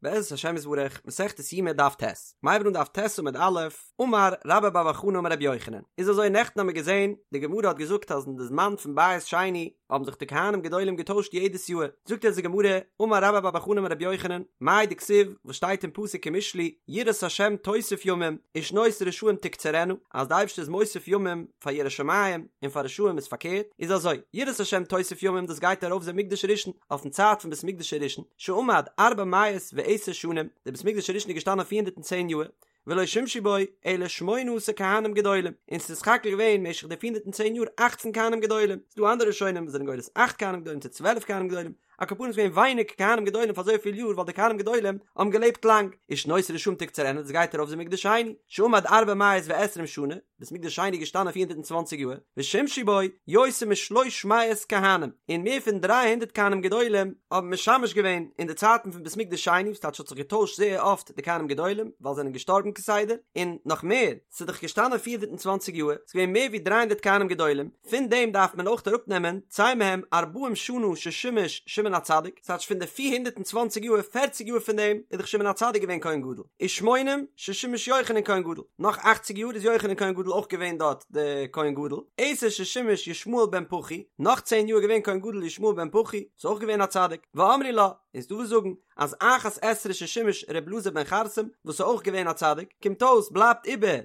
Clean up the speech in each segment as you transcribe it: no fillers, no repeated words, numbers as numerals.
בעזרת השם יתברך, מסכת יומא דף ט', מ'הייבט אן דף ט' עמוד א', אמר רבה בר בר חנה אמר רבי יוחנן, איז אזוי נעכטן האמיר געזען, די גמרא האט געזאגט אז אין די זמן פון בית שני האבן זיך די כהנים גדולים געטוישט יעדעס יאהר, זאגט אונז די גמרא, אמר רבה בר בר חנה אמר רבי יוחנן, מאי דכתיב, וואס שטייט אין פסוק אין משלי, יראת השם תוסיף ימים, ושנות רשעים תקצרנה, אז די אייבערשטער איז מוסיף ימים פאר ירא שמים, און פאר רשעים איז פארקערט, איז אזוי, יראת השם תוסיף ימים דאס גייט ארויף זה מקדש ראשון, אויפן צייט פון בית מקדש הראשון, שעמד ארבע מאות ועשר שנים, דער בית מקדש הראשון איז געשטאנען 410 יאר, ולא שימשו בו אלא שמונה עשר כהנים גדולים, און ס'איז סך הכל געווען משך די 410 יאר אכצן כהנים גדולים, ס'איז דא אנדערע ראשונים וואס זענען גורס אכט כהנים גדולים צו 12 כהנים גדולים, על כל פנים איז געווען ווייניג כהנים גדולים פאר אזויפיל יאר ווייל די כהנים גדולים האבן געלעבט לאנג, ושנות רשעים תקצרנה דאס גייט ארויף זה מקדש שני, שעמד ארבע מאות ועשרים שנה, בית מקדש שני איז געשטאנען 420 יאר, ושימשו בו יותר משלוש מאות כהנים, און מער פון 300 כהנים גדולים האבן משמש געווען אין די צייטן פון בית מקדש שני, וואס טייטש האט זיך געטוישט זייער אפט די כהנים גדולים, ווייל זיי זענען געשטארבן כסדר, און נאך מער, ס'איז דאך געשטאנען 420 יאר, ס'איז געווען מער ווי 300 כהנים גדולים, פון דעם דארף מען אויך אראפנעמען צא מהם ארבעים שנה ששימש שמעון הצדיק, ס'טייטש פון די 420 יאר, פערציג יאר פון דעם איז דאך שמעון הצדיק געווען כהן גדול, ושמונים ששימש יוחנן כהן גדול, נאך אכציג יאר איז יוחנן כהן גדול אויך געווען דארט די כהן גדול, עשר ששימש ישמעאל בן פחי, נאך צען יאר איז געווען כהן גדול ישמעאל בן פחי, איז אויך געווען א צדיק, ואמרי לה, און ס'דא וואס זאגן אז אחת עשרה ששימש ר' אלעזר בן חרסום וואס איז אויך געווען א צדיק, קומט אויס בלייבט איבער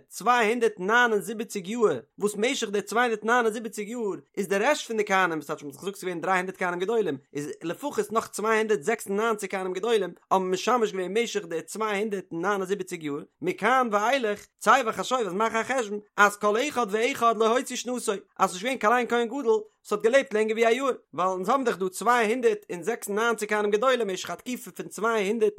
279 יאר, וואס משך די 279 יאר איז די רעשט פון די כהנים, וואס טייטש מ'האט דאך געזאגט ס'איז געווען 300 כהנים גדולים, איז לפחות נאך 296 כהנים גדולים האבן משמש געווען משך די 279 יאר, מכאן ואילך, צא וחשוב אז מאך א חשבון אז כל אחד ואחד לא הוציא שנתו, אז ס'איז נישט געווען קיין איין כהן גדול וואס האט געלעבט לענגער ווי א יאר, ווייל אונז האבן דאך דא 296 כהנים גדולים משך א תקופה פון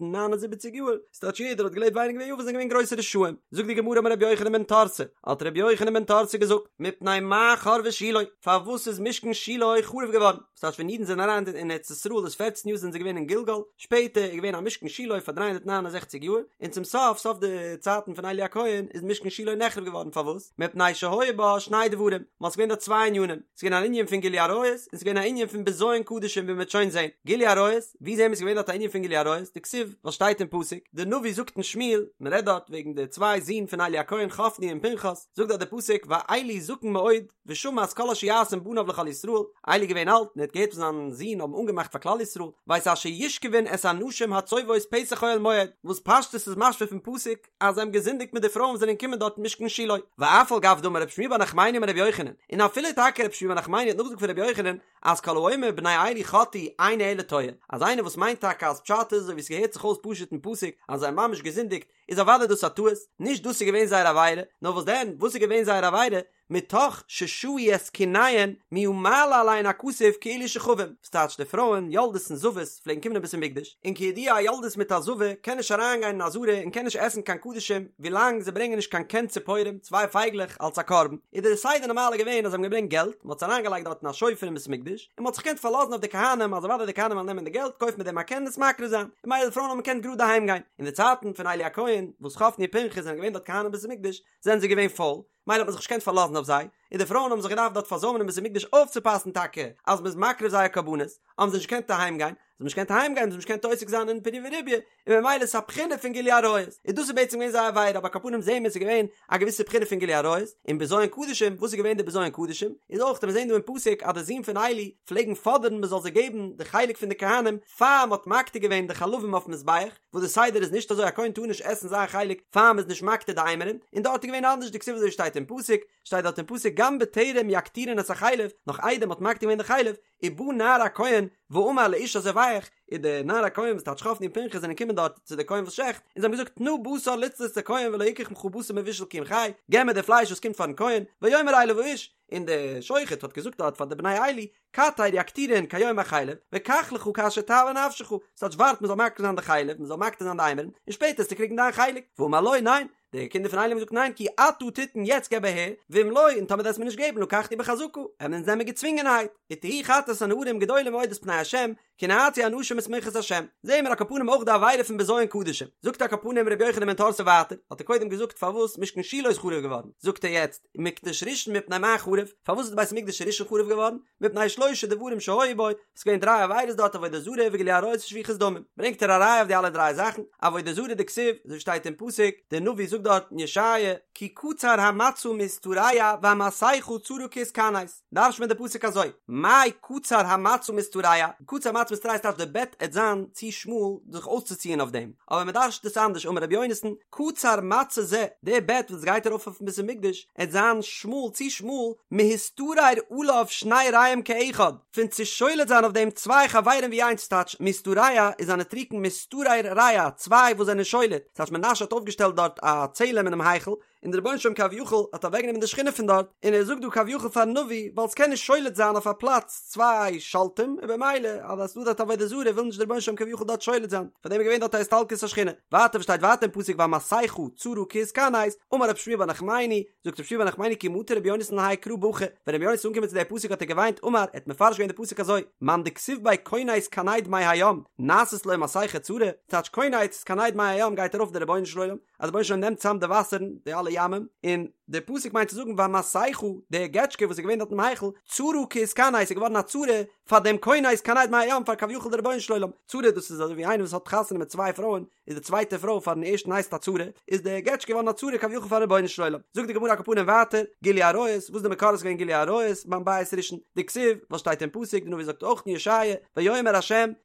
279 יאר, ס'טייטש יעדער האט געלעבט ווייניגער ווי א יאר וואס זענען געווען גרויסע רשעים. זאגט די גמרא אמר רבי יוחנן בן תורתא, האט רבי יוחנן בן תורתא געזאגט, מפני מה חרבה שילה, פארוואס איז משכן שילה חרוב געווארן? ס'טייטש ווען אידן זענען אריין אין ארץ ישראל איז פערצן יאר זענען זיי געווען אין גלגל, שפעטער איז געווען א משכן שילה פאר 369 יאר, און צום סוף סוף די צייטן פון עלי הכהן איז משכן שילה נחרב געווארן, פארוואס? מפני שהיו בה שני דברים, ווייל ס'איז געווען דארט צוויי ענינים, ס'איז געווען אן ענין פון גילוי עריות, און ס'איז געווען א ענין פון בזיון קדשים ווי מ'וועט שוין זען. גילוי עריות, ווי זעהן מיר ס'איז געווען דארט א ענין פון גילוי עריות? דכתיב, וואס שטייט אין פסוק, די נביא זאגט אין שמואל, מ'רעדט דארט וועגן די צוויי זין פון עלי הכהן חפני און פנחס, זאגט דארט די פסוק ועלי זקן מאוד ושמע את כל אשר יעשון בניו לכל ישראל, עלי איז געווען אלט און ער האט געהערט וואס זיין זין האבן אנגעמאכט פאר כלל ישראל, ואת אשר ישכבון את הנשים הצובאות פתח אוהל מועד, וואס פשטות איז משמע פון פסוק אז זיי האבן געזינדיגט מיט די פרויען וואס זענען געקומען דארט אין משכן שילה, ואף על גב דאמר רב שמואל בר נחמני אמר רבי יוחנן, און אפילו טאקע רב שמואל בר נחמני האט נאכגעזאגט פון רבי יוחנן אז כל האומר בני עלי חטאו אינו אלא טועה, אז איינער וואס מיינט טאקע אז פשט איז אזוי ווי עס געהערט זיך אויס פשוט אין פסוק אז זיי האבן ממש געזינדיגט, איז אוודאי דאס א טעות, נישט דאס איז געווען זייער עבירה, נאר וואס דען, וואס איז געווען זייער עבירה? מתוך ששהו את קיניהן מיהא מעלה עליהן הכתוב כאילו שכבום, וואס טייטש די פרויען, יולדות און זבות, פלעגן קומען אין בית המקדש, און כידוע א יולדת מיט א זבה קען נישט אריינגיין אין עזרה און קען נישט עסן קיין קדשים ווילאנג זיי ברענגען נישט קיין קן ציפורים, צוויי פייגלעך, אלס א קרבן, איז דער סדר נארמאל געווען אז זיי האבן געברענגט געלט, מען האט עס אריינגעלייגט דארט אין א שופר אין בית המקדש, און מען האט זיך געקענט פארלאזן אויף די כהנים אז אוודאי די כהנים וועלן נעמען די געלט, קויפן מיט דעם א קן און עס מקריב זיין, און ממילא די פרויען האבן געקענט גראד אהיים גיין. אין די צייטן פון עלי הכהן, וואס חפני ופנחס זענען געווען דארט כהנים אין בית המקדש, זענען זיי געווען פויל, מילא האט מען זיך נישט געקענט פארלאזן אויף זיי, און די פרויען האבן זיך געדארפט דארט פארזוימען אין בית המקדש אויפצופאסן טאקע אז מ'איז מקריב זייער קרבנות, האבן זיי נישט געקענט אהיים גיין, זיי האבן נישט געקענט אהיים גיין, זיי האבן נישט געקענט עוסק זיין אין פריה ורביה, און ממילא איז עס א בחינה פון גילוי עריות, און דאס איז בעצם געווען זייער עבירה, אבער על כל פנים זעהן מיר עס איז געווען א געוויסע בחינה פון גילוי עריות, און בזיון קדשים, וואס איז געווען די בזיון קדשים? איז אויך, מיר זעהן דא אין פסוק אז די זין פון עלי פלעגן פאדערן מען זאל זיי געבן די חלק פון די כהנים פאר מען האט מקטיר געווען די חלבים אויפן מזבח, וואס די סדר איז נישט אזוי א כהן טאר נישט עסן זיין חלק פאר מ'איז נישט מקטיר די אימורין, און דארט איז געווען אנדערש דכתיב אזוי שטייט אין פסוק, שטייט דארט אין פסוק גם בטרם יקטירון את החלב, נאך איידער מ'האט מקטיר געווען די חלב, ובא נער הכהן ואמר לאיש הזובח, איז די נער הכהן וואס טייטש חפני און פנחס זענען געקומען דארט צו די כהן וואס שעכט, און זיי האבן געזאגט תנה בשר לצלות לכהן ולא יקח ממך בשר מבושל כי אם חי, געב מיר די פלייש וואס קומט פארן כהן, ויאמר אליו האיש, און די שוחט האט געזאגט דארט פאר די בני עלי, קטר יקטירון כיום החלב, וקח לך כאשר תאוה נפשך, ס'טייטש ווארט מ'זאל מקטיר זיין די חלב, מ'זאל מקטיר זיין די אימורין, און שפעטער וועסטו קריגן דיין חלק, ואמר לו, ניין, די קינדער פון עלי האבן געזאגט ניין כי עתה תתן יעצט געב אהער, ואם לא, און טאמער וועסט מיר נישט געבן לקחנו בחזקה, וועלן אונז נעמען געצווינגענהייט, ותהי חטאת הנערים גדולה מאוד את פני ה'. השם, כי נאצו אנשים את מנחת השם. זעהן מיר על כל פנים אויך די עבירה פון בזיון קדשים. זאגט על כל פנים רבי יוחנן בן תורתא ווייטער, האט ער קודם געזאגט פארוואס משכן שילה איז חרוב געווארן, זאגט ער יעצט, מקדש ראשון מפני מה חרב, פארוואס איז די בית המקדש הראשון חרוב געווארן? מפני שלושה דברים שהיו בו, ס'איז געווען דריי עבירות דארט עבודה זרה וגילוי עריות ושפיכות דמים, ברענגט ער א ראיה אויף די אלע דריי זאכן, עבודה זרה דכתיב, אזוי שטייט אין פסוק, דער נביא זאגט דארט אין ישעיה, כי קצר המצע מהשתרע והמסכה צרה כהתכנס, דרש'נט מען די פסוק אזוי, מאי קצר המצע מהשתרע, קצר המצע מהשתרע טייטש די בעט עט זיין צו שמאל זיך אויסצוציען אויף דעם, אבער מען דרש'נט עס אנדערש אמר רבי יונתן, קצר מצע זה, די בעט וואס גייט ארויף אויפן בית המקדש עט זיין שמאל צו שמאל, מהשתרר עליו שני רעים כאחד, פון צו שולט זיין אויף דעם צוויי חברים ווי איינס טייטש מהשתרע איז א נוטריקון מהשתרר רע צוויי וואס זענען שולט טייטש מנשה האט אויפגעשטעלט דארט א צלם אינעם היכל און דער רבונו של עולם כביכול האט אוועקגענומען די שכינה פון דארט און ער זאגט דא כביכול פארן נביא ווייל ס'קען נישט שולט זיין אויף א פלאץ צוויי שולטים און במילא אז עס איז דא דארט עבודה זרה וויל נישט דער רבונו של עולם כביכול דארט שולט זיין פאר דעם איז געווען דארט א הסתלקות השכינה ווייטער וואס שטייט ווייטער אין פסוק והמסכה צרה כהתכנס אמר רב שמואל בר נחמני זאגט רב שמואל בר נחמני כי מטא רבי יונתן להאי קרא בכה, ווען רבי יונתן איז אנגעקומען צו די פסוק האט ער געוויינט אמר, ער האט מפרש געווען די פסוק אזוי, מאן דכתיב ביה כונס כנד מי הים, נעשית לו מסכה צרה, טייטש כונס כנד מי הים גייט ארויף די רבונו של עולם, אז די רבונו של עולם נעמט צאם די וואסערן, די אלע ימים, און די פסוק מיינט צו זאגן והמסכה, די געטשקע וואס איז געווען דארט אינעם היכל, צרה כהתכנס איז געווארן א צרה פאר דעם כונס כנד מי הים פאר כביכול די רבונו של עולם, צרה דאס איז אזוי ווי איינער וואס האט חתונה מיט צוויי פרויען, איז די צווייטע פרוי פארן ערשטן הייסט א צרה, איז די געטשקע געווארן א צרה כביכול פארן רבונו של עולם. זאגט די גמרא על כל פנים ווייטער, גילוי עריות, וואס די מקור איז געווען גילוי עריות ביים בית ראשון, דכתיב, וואס שטייט אין פסוק, די נביא זאגט אויך אין ישעיה, ויאמר ה',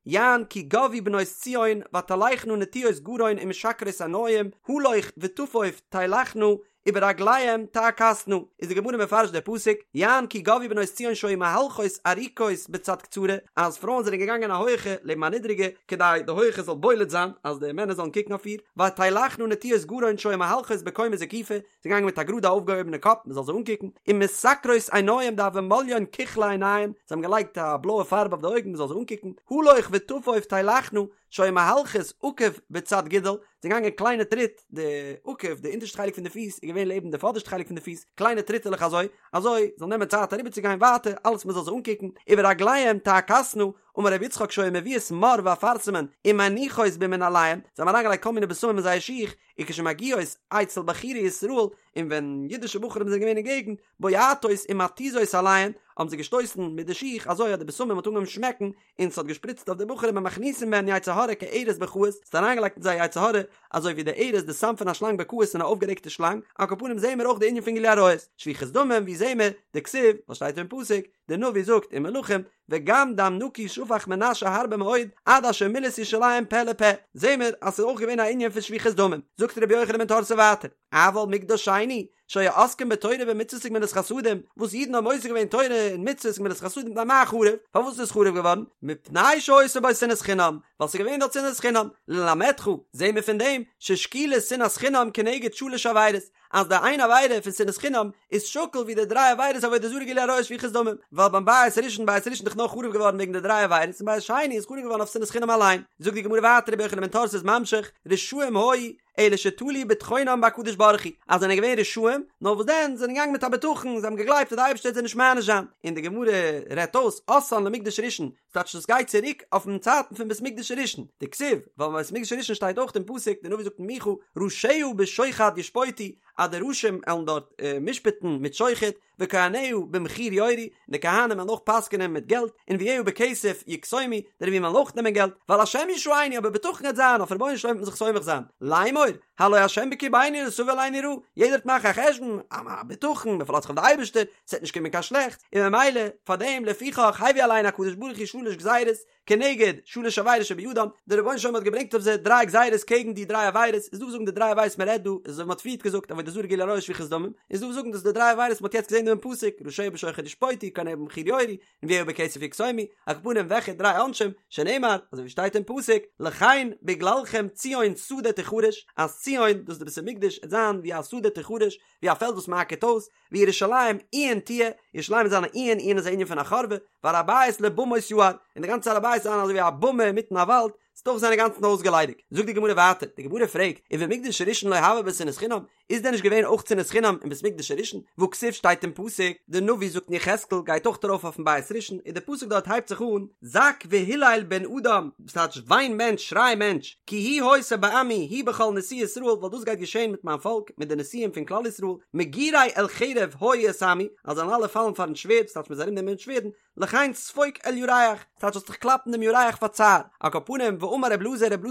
יען כי גבהו בנות ציון, ותלכנה נטויות גרון ומשקרות עינים, הלוך וטפוף תלכנה, וברגליהם תעכסנה, איז די גמרא מפרש די פסוק, יען כי גבהו בנות ציון שהיו מהלכות ארוכות בצד קצרה, אז פרויען זענען געגאנגען א הויעכע לעבן א נידריגע, כדי די הויעכע זאל בולט זיין, אז די מענער זאלן קוקן אויף איר, ותלכנה נטויות גרון שהיו מהלכות בקומה זקופה, זיי געגאנגען מיט א גראדע אויפגעהויבענע קאפ מען זאל זיי אנקוקן, ומשקרות עינים דהוו מליין כוחלא עינייהו, זיי האבן געלייגט א בלויע פארב אויף די אויגן מען זאל זיי אנקוקן, הלוך וטפוף תלכנה, שהיו מהלכות עקב בצד גודל, זיי געגאנגען קליינע טריט, די עקב, די אונטערשטע חלק פון די פיס איז געווען לעבן די פאדערשטע חלק פון די פיס, קליינע טריטעלעך אזוי, אזוי, זאל נעמען צייט אריבערצוגיין ווייטער, אלעס מען זאל זיי אנקוקן, וברגליהם תעכסנה, אמר רבי יצחק שהיו מביאות מור ואפרסמון ומניחות במנעליהם, זיי האבן אריינגעלייגט כל מיני בשמים אין זייער שיך, וכשמגיעות אצל בחורי ישראל, און ווען אידישע בחורים זענען געווען אין געגנט, בועטות ומתיזות עליהן, האבן זיי געשטויסן מיט די שיך אזוי אז די בשמים האט אנגעהויבן שמעקן, און ס'האט געשפריצט אויף די בחורים ומכניסין בהן יצר הרע כארס בכעוס, ס'האט אריינגעלייגט אין זיי יצר הרע, אזוי ווי די ארס די סם פון א שלאנג בכעוס אין א אויפגערעגטע שלאנג, על כל פנים זעהן מיר אויך די ענין פון גילוי עריות, שפיכות דמים ווי זעהן מיר, דכתיב, וואס שטייט אין פסוק, די נביא זאגט אין מלכים, וגם דם נקי שפך מנשה הרבה מאוד, עד אשר מילא את ירושלים פה לפה, זעהן מיר אז ס'איז אויך געווען א ענין פון שפיכות דמים, זאגט רבי יוחנן בן תורתא ווייטער, אבל מקדש שני, שהיו עוסקים בתורה ובמצוות וגמילות חסדים, וואס אידן האבן עוסק געווען תורה און מצוות און גמילות חסדים מפני מה חרב, פארוואס איז עס חרוב געווארן? מפני שהיתה בו שנאת חינם, ווייל ס'איז געווען דארט שנאת חינם, ללמדך, זעהן מיר פון דעם, ששקילה שנאת חינם כנגד שלש עבירות, אז די איין עבירה פון שנאת חינם איז שקול ווי די דריי עבירות עבודה זרה גילוי עריות שפיכות דמים, ווייל ביים בית ראשון בית ראשון איז דאך נאר חרוב געווארן וועגן די דריי עבירות און בית שני איז חרוב געווארן אויף שנאת חינם אליין. זאגט די גמרא ווייטער רבי יוחנן בן תורתא איז ממשיך, רשעים היו, אלא שתלו בטחונם בהקדוש ברוך הוא, אז זענען געווען רשעים, נאר וואס דען, זיי זענען געגאנגען מיט א בטחון, זיי האבן געגלייבט אז די אייבערשטער וועט זיי נישט מעניש זיין, און די גמרא רעדט אויס, אתאן למקדש ראשון, ס'טייטש דאס גייט צוריק אויפן צייטן פון בית מקדש הראשון, דכתיב, ווייל ביים בית מקדש הראשון שטייט אויך אין פסוק, די נביא זאגט אין מיכה, ראשיה בשוחד ישפוטו, אז די ראשים עלן דארט משפט'ן מיט שוחד, וכהניה במחיר יורו, און די כהנים וועלן אויך פסק'נען מיט געלט, ונביאיה בכסף יקסומו, די נביאים וועלן אויך נעמען געלט, ועל השם ישענו, אבער בטחון וועט זיין, אויף רבונו של עולם וועט מען זיך סומך זיין, לאמור, הלא השם בקרבנו לא תבוא עלינו רעה, יעדער וועט מאכן א חשבון, א בטחון, מען פארלאזט זיך אויף די אייבערשטער, ס'וועט נישט קומען קיין שלעכטס, און ממילא, פאר דעם, לפיכך, הביא עליהן הקדוש ברוך הוא שלש גזירות, כנגד שלש עבירות שבידם, דער רבונו של עולם האט געברענגט אויף זיי דריי גזירות קעגן די דריי עבירות, איז דא וואס זאגן די דריי עבירות מען רעדט דא, איז אזוי ווי מען האט פריערט געזאגט עבודה זרה גילוי עריות שפיכות דמים, איז דא וואס זאגן דאס איז די דריי עבירות מען האט יעצט געזען דא אין פסוק, ראשיה בשוחד ישפוטו, כהניה במחיר יורו, ונביאיה בכסף יקסומו, על כל פנים וועלכע דריי עונשים, שנאמר, אזוי ווי שטייט אין פסוק, לכן בגללכם ציון שדה תחרש, אז ציון, דאס איז די בית המקדש, עט זיין ווי א שדה תחרש, ווי א פעלד וואס מען אקערט אויס, וירושלים עיין תהיה, ירושלים וועט זיין א עיין, עיין איז א ענין פון א חורבה, והר הבית לבמות יער, און די גאנצע הר הבית וועט זיין אזוי ווי א במה אינמיטן א וואלד, ס'וועט אויך זיין אינגאנצן אויסגעליידיגט. זאגט די גמרא ווייטער, די גמרא פרעגט, ובמקדש הראשון לא הוה ביה שנאת חינם, איז דען נישט געווען אויך שנאת חינם אין בית מקדש הראשון? והכתיב שטייט אין פסוק, די נביא זאגט אין יחזקאל גייט אויך ארויף אויפן בית ראשון, און די פסוק דארט הייבט זיך אן, זעק והילל בן אדם, דאס טייטש וויין מענטש, שריי מענטש, כי היא היתה בעמי, היא בכל נשיאי ישראל, ווייל דאס גייט געשען מיט מיין פאלק, מיט די נשיאים פון כלל ישראל, מגורי אל חרב היו את עמי, אז זיי וועלן אלע פאלן פארן שווערד, דאס טייטש מ'וועט זיי ארומנעמען מיט שווערדן, לכן ספוק אל ירך, ס'טייטש זאלסט דיך קלאפן דעם ירך פאר צער. על כל פנים, ואמר רב אלעזר, רב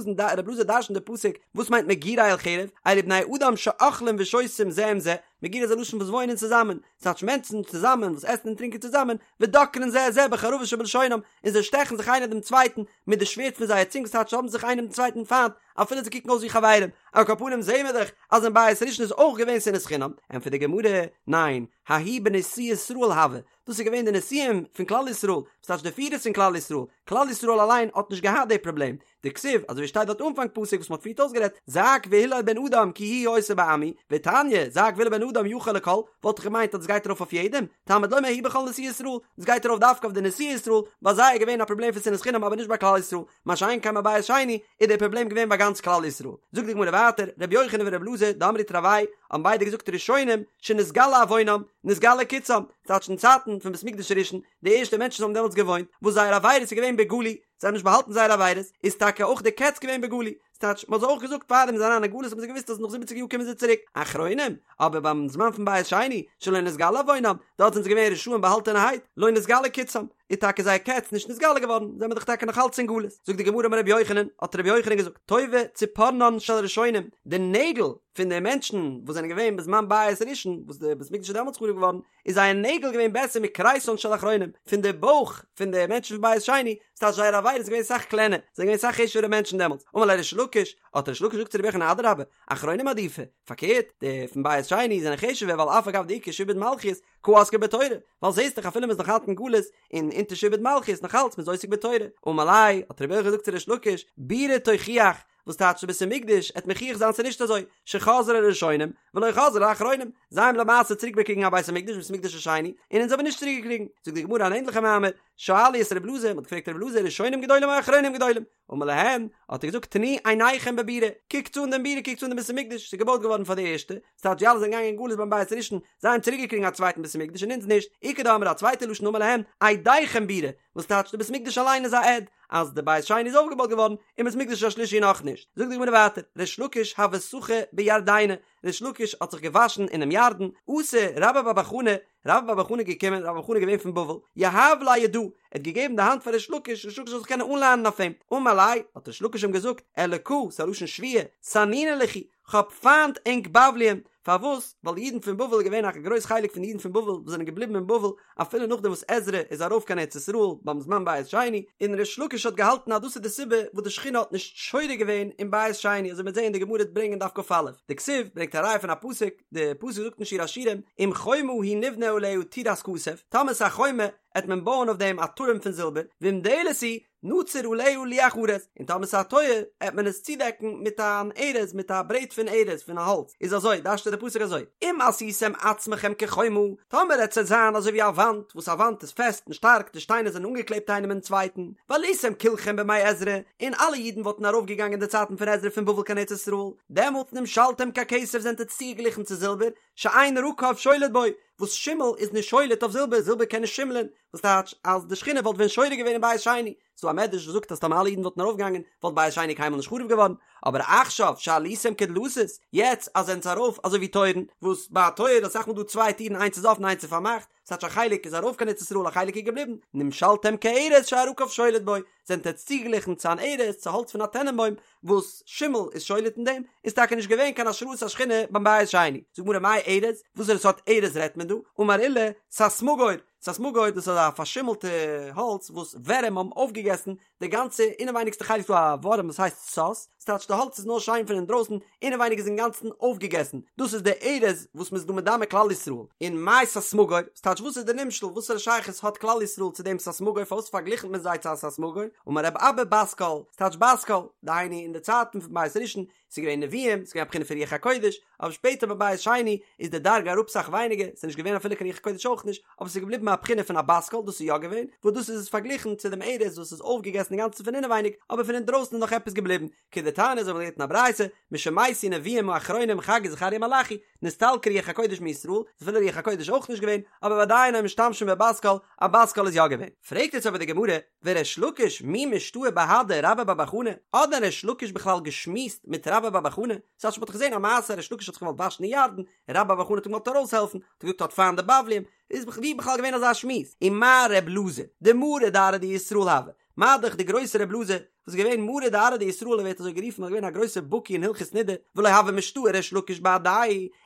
אלעזר דרש'נט די פסוק, וואס מיינט מגורי אל חרב, אלו בני אדם שאוכלים ושותים זה עם זה, מגורי איז א לשון וואס וואוינען צוזאמען, ס'טייטש מענטשן צוזאמען וואס עסן און טרינקען צוזאמען, ודוקרין זה את זה בחרבות שבלשונם, און זיי שטעכן זיך איינער דעם צווייטן מיט די שווערד פון זייער צונג, ס'טייטש זיי האבן זיך איינער דעם צווייטן פיינט, אפילו זיי קוקן אויס ווי חברים. על כל פנים זעהן מיר דאך אז אין בית ראשון איז אויך געווען שנאת חינם. ענטפערט די גמרא, ניין, ההוא בנשיאי ישראל הוה, דאס איז געווען די נשיאים פון כלל ישראל, וואס טייטש די פירערס פון כלל ישראל, כלל ישראל אליין האט נישט געהאט די פראבלעם, דכתיב, אזוי ווי שטייט דארט אנפאנג פסוק וואס מען האט פריערט אויסגערעדט, זעק והילל בן אדם כי היא היתה בעמי, ותניא, זעק והילל בן אדם יכול לכל, וואלט איך געמיינט אז דאס גייט ארויף אויף יעדעם, תלמוד לומר ההוא בכל נשיאי ישראל, דאס גייט ארויף דווקא אויף די נשיאי ישראל, ביי זיי איז געווען א פראבלעם פון שנאת חינם אבער נישט ביי כלל ישראל, מה שאין כן ביי בית שני איז דער פראבלעם געווען ביי גאנץ כלל ישראל. זאגט די גמרא ווייטער, רבי יוחנן ורבי אלעזר דאמרי תרוייהו האבן ביידע געזאגט ראשונים שנתגלה עוונם, נתגלה קצם, ס'טייטש אין צייטן פון בית מקדש הראשון, די ערשטע מענטשן האבן דעמאלטס געוואוינט, וואס זייער עבירות איז געווען בגלוי, זיי האבן נישט באהאלטן זייער עבירות, איז טאקע אויך די קץ געווען בגלוי, ס'טייטש מ'האט זיי אויך געזאגט פארדעם זיי זענען אריין אין גלות האבן זיי געוואוסט אז נאך זיבעציג יאר קומען זיי צוריק, אחרונים, אבער ביים זמן פון בית שני, שלא נתגלה עוונם, דארט זענען זיי געווען רשעים באהאלטענערהייט, לא נתגלה קצם, איז טאקע זייער קץ נישט נתגלה געווארן, זענען מיר דאך טאקע נאך אלץ אין גלות. זאגט די גמרא אמר רבי יוחנן, האט רבי יוחנן געזאגט, טובה ציפורנן של ראשונים, די נעגל פון די מענטשן וואס זענען געווען בזמן בית ראשון, וואס די בית מקדש איז דעמאלטס חרוב געווארן, איז זייער נעגל געווען בעסער מכריסן של אחרונים, פון די בויך פון די מענטשן פון בית שני, ס'טייטש זייער עבירה איז געווען סאך קלענער, זיי זענען געווען סאך חשוב'ערע מענטשן דעמאלטס. אמר ליה ריש לקיש, האט ריש לקיש געזאגט צו רבי יוחנן אדרבה, אחרונים עדיפי, פארקערט, די פון בית שני זענען חשוב'ער ווייל אף על גב דאיכא שעבוד מלכיות, קא עסקי בתורה, ווייל זעסט דאך אפילו מ'איז נאך אלץ אין גלות און אונטער שעבוד מלכיות נאך אלץ מ'איז עוסק בתורה. אמר ליה, האט רבי יוחנן געזאגט צו ריש לקיש, בירה תוכיח, וואס טייטש די בית המקדש עט מוכיח זיין ס'איז נישט אזוי, שחזרה לראשונים ולא חזרה לאחרונים, זיי האבן למעשה צוריק באקריגן א בית המקדש בית המקדש השני, און אונז האבן נישט צוריק געקריגן. זאגט די גמרא אן ענדליכע מאמר, שאלו את רב אלעזר, מ'האט געפרעגט רב אלעזר ראשונים גדולים או אחרונים גדולים? אמר להם, האט ער געזאגט תנו עיניכם בבירה, קוקטס אן דעם בירה, קוקטס אן דעם בית המקדש, ס'איז געבויט געווארן פאר די ערשטע, ס'טייטש די אלע זענען געגאנגען אין גלות ביים בית הראשון, זיי האבן צוריק געקריגן א צווייטן בית המקדש און אונז נישט, איכא דאמרי א צווייטע לשון אמר להם, עדיכם בירה, וואס טייטש די בית המקדש אליין איז א עד, אז די בית שני איז אויפגעבויט געווארן, און בית המקדש השלישי נאכנישט. זאגט די גמרא ווייטער, ריש לקיש הוה סחי בירדנא, ריש לקיש האט זיך געוואשן אינעם ירדן, אתא רבה בר בר חנה, רבה בר בר חנה איז געקומען, רבה בר בר חנה איז געווען פון בבל, יהב ליה ידא, ער האט געגעבן די האנט פאר ריש לקיש, ריש לקיש זאל זיך קענען אנלענען אויף אים, אמר ליה, האט ריש לקיש אים געזאגט, אלקא, ס'איז א לשון שבועה, סנינא לכו, כ'האב פיינט ענק בבליים, פארוואס? ווייל די אידן פון בבל איז געווען א גרויס חלק פון די אידן פון בבל וואס זענען געבליבן אין בבל אפילו נאכדעם וואס עזרא איז ארויף קיין ארץ ישראל ביים זמן בית שני, און ריש לקיש האט געהאלטן אז דאס איז די סיבה וואס די שכינה האט נישט שורה געווען אין בית שני, אזוי מ'וועט זען די גמרא ברענגען אין דף כ"א, דכתיב ברענגט א ראיה פון א פסוק, די פסוק זאגט אין שיר השירים, אם חומה היא נבנה עליה טירת כסף, טאמער ס'איז א חומה עט מען בויען אויף דעם א טורעם פון זילבער, ואם דלת היא, נצור עליה לוח ארז, און טאמער ס'איז א טויער, עט מען עס צודעקן מיט אן ארז, מיט א ברעט פון ארז, פון א האלץ. איז אזוי, דרש'ט דער פסוק אזוי, אם עשיתם עצמכם כחומה, טאמער עט עטס זיין אזוי ווי א וואנט, וואס א וואנט איז פעסט און שטארק, די שטיינער זענען אנגעקלעבט איינעם אין צווייטן, ועליתם כולכם בימי עזרא, און אלע אידן וואלטן ארויפגעגאנגען אין די צייטן פון עזרא פון בבל קיין ארץ ישראל, דעמאלט נמשלתם ככסף זענט עטס צוגעגליכן צו זילבער, שאין רקב שולט בו, וואס שימל איז נישט שולט אויף זילבער, זילבער קען נישט שימלען, וואס טייטש אז די שכינה וואלט ווען שורה געווען אין בית שני, ס'דא א מדרש וואס זאגט אז טאמער אלע אידן וואלטן ארויפגעגאנגען וואלט בית שני קיינמאל נישט חרוב געווארן, אבער עכשיו שעליתם כדלתות, יעצט אז זענטס ארויף אזוי ווי טויערן, וואס ביי א טויער איז אסאך מאל דא צוויי טירן איינס איז אפן איינס איז פארמאכט, ס'טייטש א חלק איז ארויף קיין ארץ ישראל א חלק איז געבליבן, נמשלתם כארז שהרקב שולט בו, זענט עטץ צוגעגליכן צו אן ארז, צו האלץ פון א טענענבוים, וואס שימל איז שולט אין דעם, איז טאקע נישט געווען קיין השראת השכינה ביים בית שני. זאגט גמרא מאי ארז, וואסערע סארט ארז רעדט מען דא? אמר עולא, ססמגור, ססמגור דאס איז א פארשימלטע האלץ וואס ווערים האבן אויפגעגעסן די גאנצע אינעווייניגסטע חלק, ס'דא א ווארעם וואס הייסט סס, ס'טייטש די האלץ איז נאר שיין פון אינדרויסן, אינעווייניג איז אינגאנצן אויפגעגעסן, דאס איז די ארז וואס מ'איז דא מדמה כלל ישראל, און מאי ססמגור, ס'טייטש. ס'טייטש וואס איז די נמשל, וואסערע שייכות האט כלל ישראל צו דעם ססמגור, פארוואס פארגליכנט מען זיי צו א ססמגור, אמר רב אבא בת קול, ס'טייטש בת קול, דהיינו אין די צייטן פון בית ראשון, ס'איז געווען נביאים, ס'איז געווען א בחינה פון רוח הקודש, אבער שפעטער ביי בית שני איז די דרגה אראפ סאך ווייניגער, ס'איז נישט געווען אפילו קיין רוח הקודש אויך נישט, אבער ס'איז געבליבן א בחינה פון א בת קול, דאס איז יא געווען, וואס דאס איז עס פארגליכן צו דעם ארז וואס איז אויפגעגעסן אינגאנצן פון אינעווייניג, אבער פון אינדרויסן איז נאך עפעס געבליבן, כדתניא אזוי ווי מ'לערנט אין א ברייתא, משמתו נביאים האחרונים חגי זכריה מלאכי, נסתלקה רוח הקודש מישראל, איז אפילו רוח הקודש אויך נישט געווען, אבער ועדיין היו משתמשים בבת קול, א בת קול איז יא געווען. פרעגט יעצט אבער די גמרא, וריש לקיש מי משתעי בהדי רבה בר בר חנה, האט דען ריש לקיש בכלל געשמועסט מיט רבה בר בר חנה? ס'טייטש מ'האט דאך געזען א מעשה ריש לקיש האט זיך געוואלט וואשן אין ירדן, און רבה בר בר חנה האט אים געוואלט ארויסהעלפן, האט ער געזאגט האט פיינט די בבלים, איז ווי בכלל געווען אזא שמועס? ומה ר' אלעזר, דמרא דארעא דישראל הוה, מה דאך די גרויסע ר' אלעזר, וואס איז געווען מרא דארעא דישראל ער ווערט אזוי גערופן ווייל ער איז געווען א גרויסער בקי אין הלכות נידה, ולא הוה משתעי ריש לקיש בהדיה,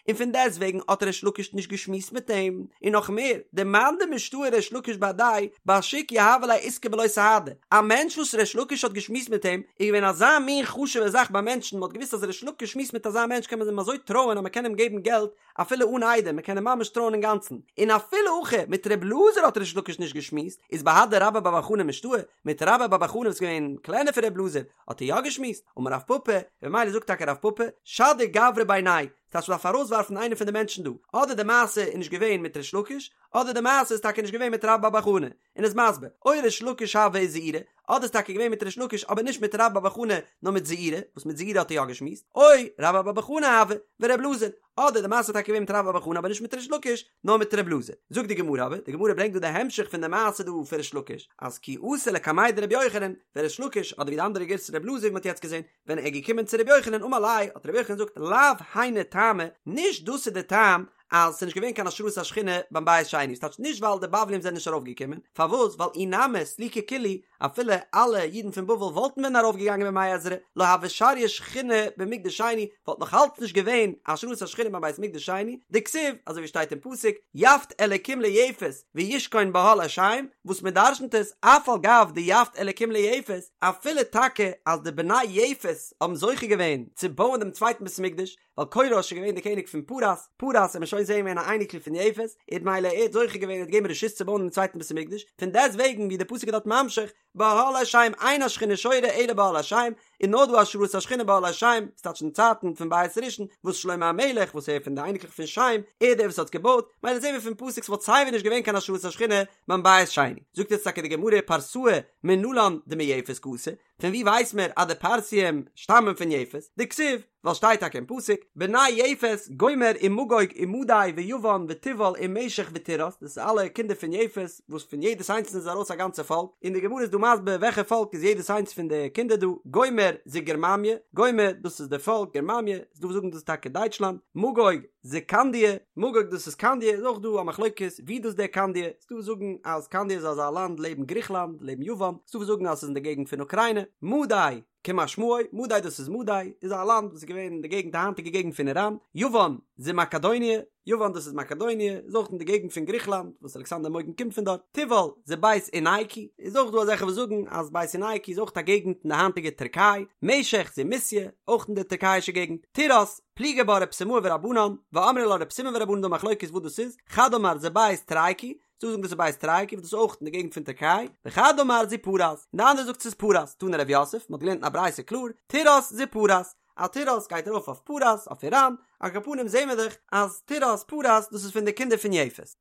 און פון דעסט וועגן האט ריש לקיש נישט געשמועסט מיט אים, און נאך מער, דמאן דמשתעי ריש לקיש בהדיה, בשוק יהבו ליה עיסקא בלא סהדי, א מענטש וואס ריש לקיש האט געשמועסט מיט אים, איז געווען אזא מין חשוב'ע זאך ביי מענטשן, מען האט געוואוסט אז ריש לקיש שמועסט מיט אזא מענטש קען מען אים אזוי טרויען אז מען קען אים געבן געלט אפילו אן עדים, מען קען אים ממש טרויען אינגאנצן, און אפילו הכי מיט ר' אלעזר האט ריש לקיש נישט געשמועסט, איז בהדי רבה בר בר חנה משתעי, מיט רבה בר בר חנה וואס איז געווען קלענער פון ר' אלעזר, האט ער יא געשמועסט, אמר רב פפא, וממילא זאגט טאקע רב פפא, שדי גברא בינייהו, ס'טייטש מ'דארף ארויסווארפן איינער פון די מענטשן דא, אדער די מעשה איז נישט געווען מיט ריש לקיש, אדער די מעשה איז טאקע נישט געווען מיט רבה בר בר חנה, און איז מסביר, או ריש לקיש הוה וזעירא, אדער איז טאקע געווען מיט ריש לקיש אבער נישט מיט רבה בר בר חנה נאר מיט זעירא, וואס מיט זעירא האט ער יא געשמועסט, או רבה בר בר חנה הוה ור' אלעזר, אדער די מעשה איז טאקע געווען מיט רבה בר בר חנה אבער נישט מיט ריש לקיש נאר מיט ר' אלעזר. זאגט די גמרא אבער, די גמרא ברענגט דא די המשך פון די מעשה דא פון ריש לקיש, אז כי אתא לקמיה דרבי יוחנן, ווען ריש לקיש, אדער ווי די אנדערע גירסא ר' אלעזר ווי מ'האט יעצט געזען, ווען ער איז געקומען צו רבי יוחנן אמר ליה, האט רבי יוחנן געזאגט, לאו היינו טעמא, נישט דאס איז די טעם אז ס'איז נישט געווען קיין השראת השכינה ביים בית שני, ס'טייטש נישט ווייל די בבלים זענען נישט ארויפגעקומען, פארוואס? ווייל אי נמי סליקו כולהו, אפילו אלע אידן פון בבל וואלטן ווען ארויפגעגאנגען בימי עזרא, לא הוה שריא שכינה במקדש שני, וואלט נאך אלץ נישט געווען השראת השכינה ביים בית מקדש שני, דכתיב, אזוי ווי שטייט אין פסוק, יפת אלקים ליפת וישכון באהלי שם, וואס מען דרשנ'ט עס, אף על גב דיפת אלקים ליפת, אפילו טאקע אז די בני יפת האבן זוכה געווען צו בויען דעם צווייטן בית המקדש, ווייל כורש איז געווען דער קעניג פון פרס, פרס וועט מען שוין זעהן געווען א אייניקל פון יפת, איז מילא ער האט זוכה געווען ער האט געגעבן רשות צו בויען דעם צווייטן בית המקדש, פון דעסט וועגן ווי דער פסוק איז דארט ממשיך, באהלי שם אין השכינה שורה אלא באהלי שם, איז נאר דא השראת השכינה באהלי שם, ס'טייטש אין צייטן פון בית ראשון, וואס שלמה המלך וואס ער פון די אייניקלעך פון שם, ער דער וואס האט געבויט, מילא זעהן מיר פון פסוק ס'וואלט סייווי נישט געווען קיין השראת השכינה ביים בית שני. זאגט יעצט טאקע די גמרא פרסאי מנלן דמיפת קאתו, פון ווי ווייס מיר אז די פרסיים שטאמען פון יפת? דכתיב, ווייל שטייט טאקע אין פסוק, בני יפת, גומר ומגוג ומדי ויוון ותובל ומשך ותירס, דאס איז אלע קינדער פון יפת, וואס פון יעדעס איינס איז ארויס א גאנצע פאלק, און די גמרא איז דא מסביר וועלכע פאלק איז יעדעס איינס פון די קינדער דא, גומר זו גרממיא, גומר דאס איז די פאלק גרממיא, איז דא וואס זאגן דאס איז טאקע דייטשלאנד, מגוג זו קנדיא, מגוג דאס איז קנדיא, איז אויך דא א מחלוקת ווי דאס דער קנדיא, ס'דא וואס זאגן אז קנדיא איז אזא לאנד לעבן גריכלאנד, לעבן יוון, ס'דא וואס זאגן אז ס'איז אין די געגנט פון אוקריינע, מדי, כמשמעו, מדי דאס איז מדי, איז א לאנד וואס איז געווען אין די געגנט די היינטיגע געגנט פון איראן, יוון, זו מקדוניה, יוון דאס איז מקדוניה, איז אויך אין די געגנט פון גריכלאנד, וואס אלכסנדר מוקדון קומט פון דארט, תובל, זו בית אונייקי, איז אויך דא אזעלכע וואס זאגן אז בית אונייקי איז אויך א געגנט אין די היינטיגע טערקיי, משך, זו מוסיא, אויך אין די טערקייאישע געגנט, תירס, פליגי בה רב סימאי ורבנן, ואמרי לה רב סימון ורבנן דא מחלוקת וואס דאס איז, חד אמר זו בית תרייקי, ס'דא וואס זאגן דאס איז בית תרייקי וואס דאס איז אויך אין די געגנט פון טערקיי, וחד אמר זו פרס, און די אנדערע זאגט ס'איז פרס, תני רב יוסף, מ'האט געלערנט אין א ברייתא קלאר, תירס זו פרס, אז תירס גייט ארויף אויף פרס, אויף איראן, על כל פנים זעהן מיר דאך אז תירס פרס דאס איז פון די קינדער פון יפת.